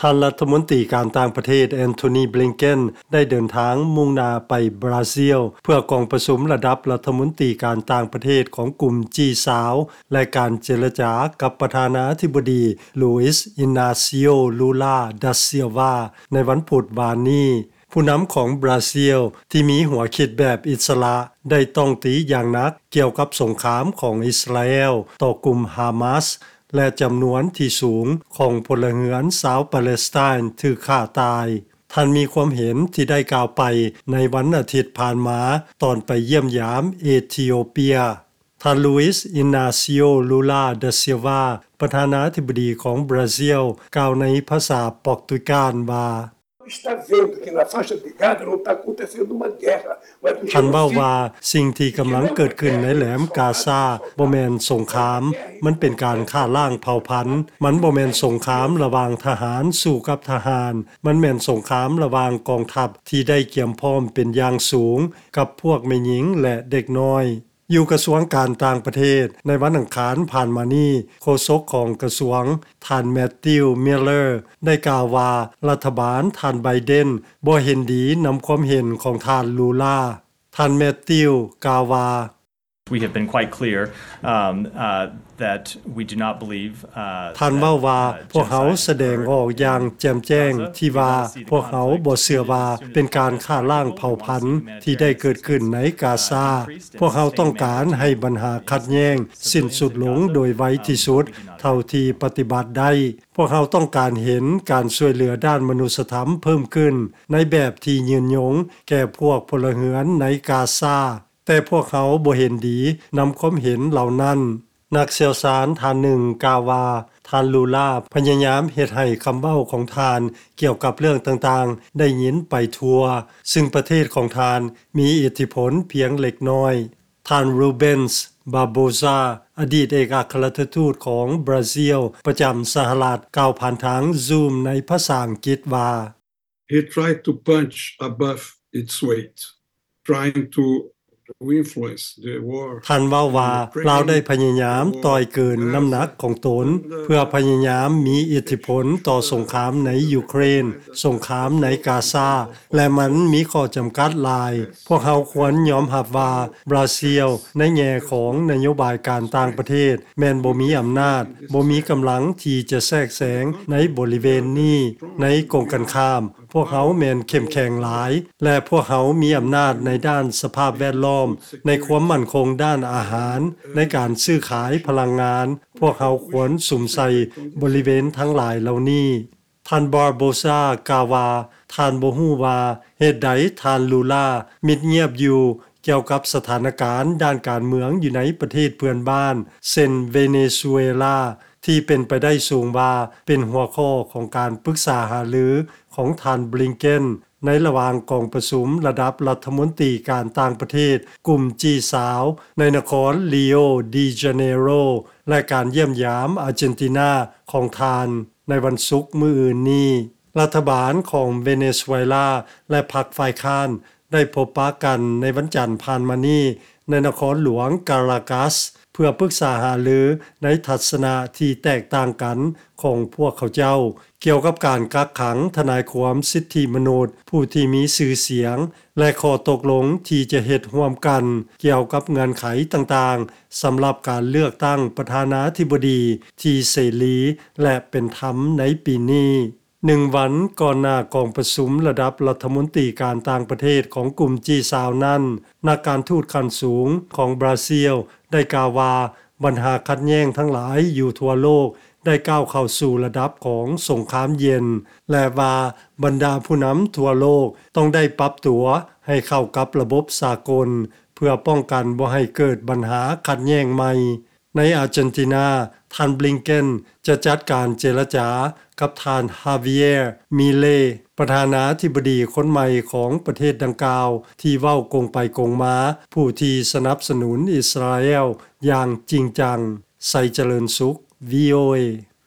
ທ່ານລັດຖະມົນຕີການຕ່າງປະເທດ ແອນໂທນີ ບລິງເກັນ ໄດ້ເດີນທາງມຸ່ງໜ້າໄປບຣາຊິລ ເພື່ອກອງປະຊຸມລະດັບລັດຖະມົນຕີການຕ່າງປະເທດຂອງກຸ່ມ ຈີ ຊາວ ແລະ ການເຈລະຈາກັບປະທານາທິບໍດີ ລູອິສ ອິນນາຊິໂອ ລູລາ ດາ ຊິລວາ ໃນວັນພຸດວານນີ້. ຜູ້ນຳຂອງບຣາຊິລ ທີ່ມີຫົວຄິດແບບອິດສະຫຼະ ໄດ້ຕ້ອງຕີຢ່າງໜັກກ່ຽວກັບສົງຄາມຂອງອິດສະຣາແອລຕໍ່ກຸ່ມຮາມາສ ແລະ ຈຳນວນທີ່ສູງຂອງພົນລະເຮືອນຊາວປາເລສໄຕນຖືກຂ້າຕາຍ. ທ່ານມີຄວາມເຫັນທີ່ໄດ້ກ່າວໄປໃນວັນອາທິດຜ່ານມາ ຕອນໄປຢ້ຽມຢາມເອທິໂອເປຍ. ທ່ານ ລູອິສ ອິນນາຊິໂອ ລູລາ ດາ ຊິລວາ ປະທານາທິບໍດີຂອງບຣາຊິລ ກ່າວໃນພາສາປອກຕຸຍການວ່າ Está vendo que na faixa de Gaza não está acontecendo uma guerra, mas um ທ່ານເວົ້າວ່າ genocídio. ສິ່ງທີ່ກຳລັງເກີດຂຶ້ນໃນແຫຼມກາຊາບໍ່ແມ່ນສົງຄາມ, ມັນເປັນການຂ້າລ້າງເຜົ່າພັນ. ມັນບໍ່ແມ່ນສົງຄາມລະຫວ່າງທະຫານສູ້ກັບທະຫານ, ມັນແມ່ນສົງຄາມລະຫວ່າງກອງທັບທີ່ໄດ້ກຽມພ້ອມເປັນຢ່າງສູງກັບພວກແມ່ຍິງ ແລະ ເດັກນ້ອຍ. ຢູ່ກະຊວງການຕ່າງປະເທດ ໃນວັນອັງຄານຜ່ານມານີ້, ໂຄສົກຂອງກະຊວງ ທ່ານ ແມັດຕິວ ມິລເລີ ໄດ້ກ່າວວ່າ ລັດຖະບານທ່ານ ໄບເດັນ ບໍ່ເຫັນດີນຳຄວາມເຫັນຂອງທ່ານ ລູລາ. ທ່ານ ແມັດຕິວ ກ່າວວ່າ We have been quite clear, um, uh, that we do not believe, uh, ທ່ານເວົ້າວ່າ ພວກເຮົາສະແດງອອກຢ່າງແຈ່ມແຈ້ງທີ່ວ່າ ພວກເຮົາບໍ່ເຊື່ອວ່າເປັນການຂ້າລ້າງເຜົ່າພັນທີ່ໄດ້ເກີດຂຶ້ນໃນກາຊາ. ພວກເຮົາຕ້ອງການໃຫ້ບັນຫາຂັດແຍ່ງສິ້ນສຸດລົງໂດຍໄວທີ່ສຸດເທົ່າທີ່ປະຕິບັດໄດ້. ພວກເຮົາຕ້ອງການເຫັນການຊ່ວຍເຫຼືອດ້ານມະນຸດສະທຳເພີ່ມຂຶ້ນໃນແບບທີ່ຍືນຍົງແກ່ພວກພົນລະເຮືອນໃນກາຊາ. ແຕ່ພວກເຮົາບໍ່ເຫັນດີນຳຄວາມເຫັນເຫຼົ່ານັ້ນ. ນັກຊ່ຽວຊານທ່ານໜຶ່ງກ່າວວ່າ ທ່ານ ລູລາ ພະຍາຍາມເຮັດໃຫ້ຄຳເວົ້າຂອງທ່ານກ່ຽວກັບເລື່ອງຕ່າງໆໄດ້ຍິນໄປທົ່ວ, ຊຶ່ງປະເທດຂອງທ່ານມີອິດທິພົນພຽງເລັກນ້ອຍ. ທ່ານ ຣູເບັນສ໌ ບາໂບຊາ ອະດີດເອກອັກຄະລັດຖະທູດຂອງບຣາຊິລປະຈຳສະຫະລັດ ກ່າວຜ່ານທາງຊູມໃນພາສາອັງກິດວ່າ He tried to punch above its weight, trying to influence the war. ທ່ານເວົ້າວ່າ ລາວໄດ້ພະຍາຍາມຕ່ອຍເກີນນ້ຳໜັກຂອງຕົນ ເພື່ອພະຍາຍາມມີອິດທິພົນຕໍ່ສົງຄາມໃນຢູເຄຣນ, ສົງຄາມໃນກາຊາ ແລະ ມັນມີຂໍ້ຈຳກັດຫຼາຍ. ພວກເຮົາຄວນຍອມຮັບວ່າ ບຣາຊິລ ໃນແງ່ຂອງນະໂຍບາຍການຕ່າງປະເທດ ແມ່ນບໍ່ມີອຳນາດ, ບໍ່ມີກຳລັງທີ່ຈະແຊກແຊງໃນບໍລິເວນນີ້. ໃນກົງກັນຂ້າມ, ພວກເຮົາແມ່ນເຂັ້ມແຂງຫຼາຍ ແລະ ພວກເຮົາມີອຳນາດໃນດ້ານສະພາບແວດລ້ອມ, ໃນຄວາມໝັ້ນຄົງດ້ານອາຫານ, ໃນການຊື້ຂາຍພະລັງງານ. ພວກເຮົາຄວນສຸມໃສ່ບໍລິເວນທັງຫຼາຍເຫຼົ່ານີ້. ທ່ານ ບາໂບຊາ ກ່າວວ່າ ທ່ານບໍ່ຮູ້ວ່າເຫດໃດທ່ານ ລູລາ ມິດງຽບຢູ່ ກ່ຽວກັບສະຖານະການດ້ານການເມືອງຢູ່ໃນປະເທດເພື່ອນບ້ານ ເຊັ່ນ ເວເນຊູເອລາ ທີ່ເປັນໄປໄດ້ສູງວ່າເປັນຫົວຂໍ້ຂອງການປຶກສາຫາລືຂອງທ່ານ ບລິງເກັນ ໃນລະຫວ່າງກອງປະຊຸມລະດັບລັດຖະມົນຕີການຕ່າງປະເທດກຸ່ມ ຈີ ຊາວ ໃນນະຄອນ ຣີໂອ ດີ ຈາເນໂຣ ແລະ ການຢ້ຽມຢາມອາເຈນຕິນາຂອງທ່ານໃນວັນສຸກມື້ອື່ນນີ້. ລັດຖະບານຂອງເວເນຊູເອລາ ແລະ ພັກຝ່າຍຄ້ານ ໄດ້ພົບປະກັນໃນວັນຈັນຜ່ານມານີ້ ໃນນະຄອນຫຼວງກາລາກັສ ເພື່ອປຶກສາຫາລືໃນທັດສະນະທີ່ແຕກຕ່າງກັນຂອງພວກເຂົາເຈົ້າ ກ່ຽວກັບການກັກຂັງທະນາຍຄວາມສິດທິມະນຸດຜູ້ທີ່ມີຊື່ສຽງ ແລະ ຂໍ້ຕົກລົງທີ່ຈະເຮັດຮ່ວມກັນກ່ຽວກັບເງື່ອນໄຂຕ່າງໆ ສຳລັບການເລືອກຕັ້ງປະທານາທິບໍດີທີ່ເສລີ ແລະ ເປັນທຳໃນປີນີ້. ໜຶ່ງວັນກ່ອນໜ້າກອງປະຊຸມລະດັບລັດຖະມົນຕີການຕ່າງປະເທດຂອງກຸ່ມ ຈີ ຊາວ ນັ້ນ, ນັກການທູດຂັ້ນສູງຂອງບຣາຊິລໄດ້ກ່າວວ່າ ບັນຫາຂັດແຍ່ງທັງຫຼາຍຢູ່ທົ່ວໂລກໄດ້ກ້າວເຂົ້າສູ່ລະດັບຂອງສົງຄາມເຢັນ ແລະ ວ່າບັນດາຜູ້ນຳທົ່ວໂລກຕ້ອງໄດ້ປັບຕົວໃຫ້ເຂົ້າກັບລະບົບສາກົນ ເພື່ອປ້ອງກັນບໍ່ໃຫ້ເກີດບັນຫາຂັດແຍ່ງໃໝ່. ໃນອາເຈນຕິນາ, ທ່ານ ບລິງເກັນ ຈະຈັດການເຈລະຈາກັບທ່ານ ຮາວິເຢຍ ມິເລ ປະທານາທິບໍດີຄົນໃໝ່ຂອງປະເທດດັ່ງກ່າວ ທີ່ເວົ້າກົງໄປກົງມາ ຜູ້ທີ່ສະໜັບສະໜູນອິດສະຣາແອລຢ່າງຈິງຈັງ. ໄຊຈະເລີນສຸກ ວີໂອເອ.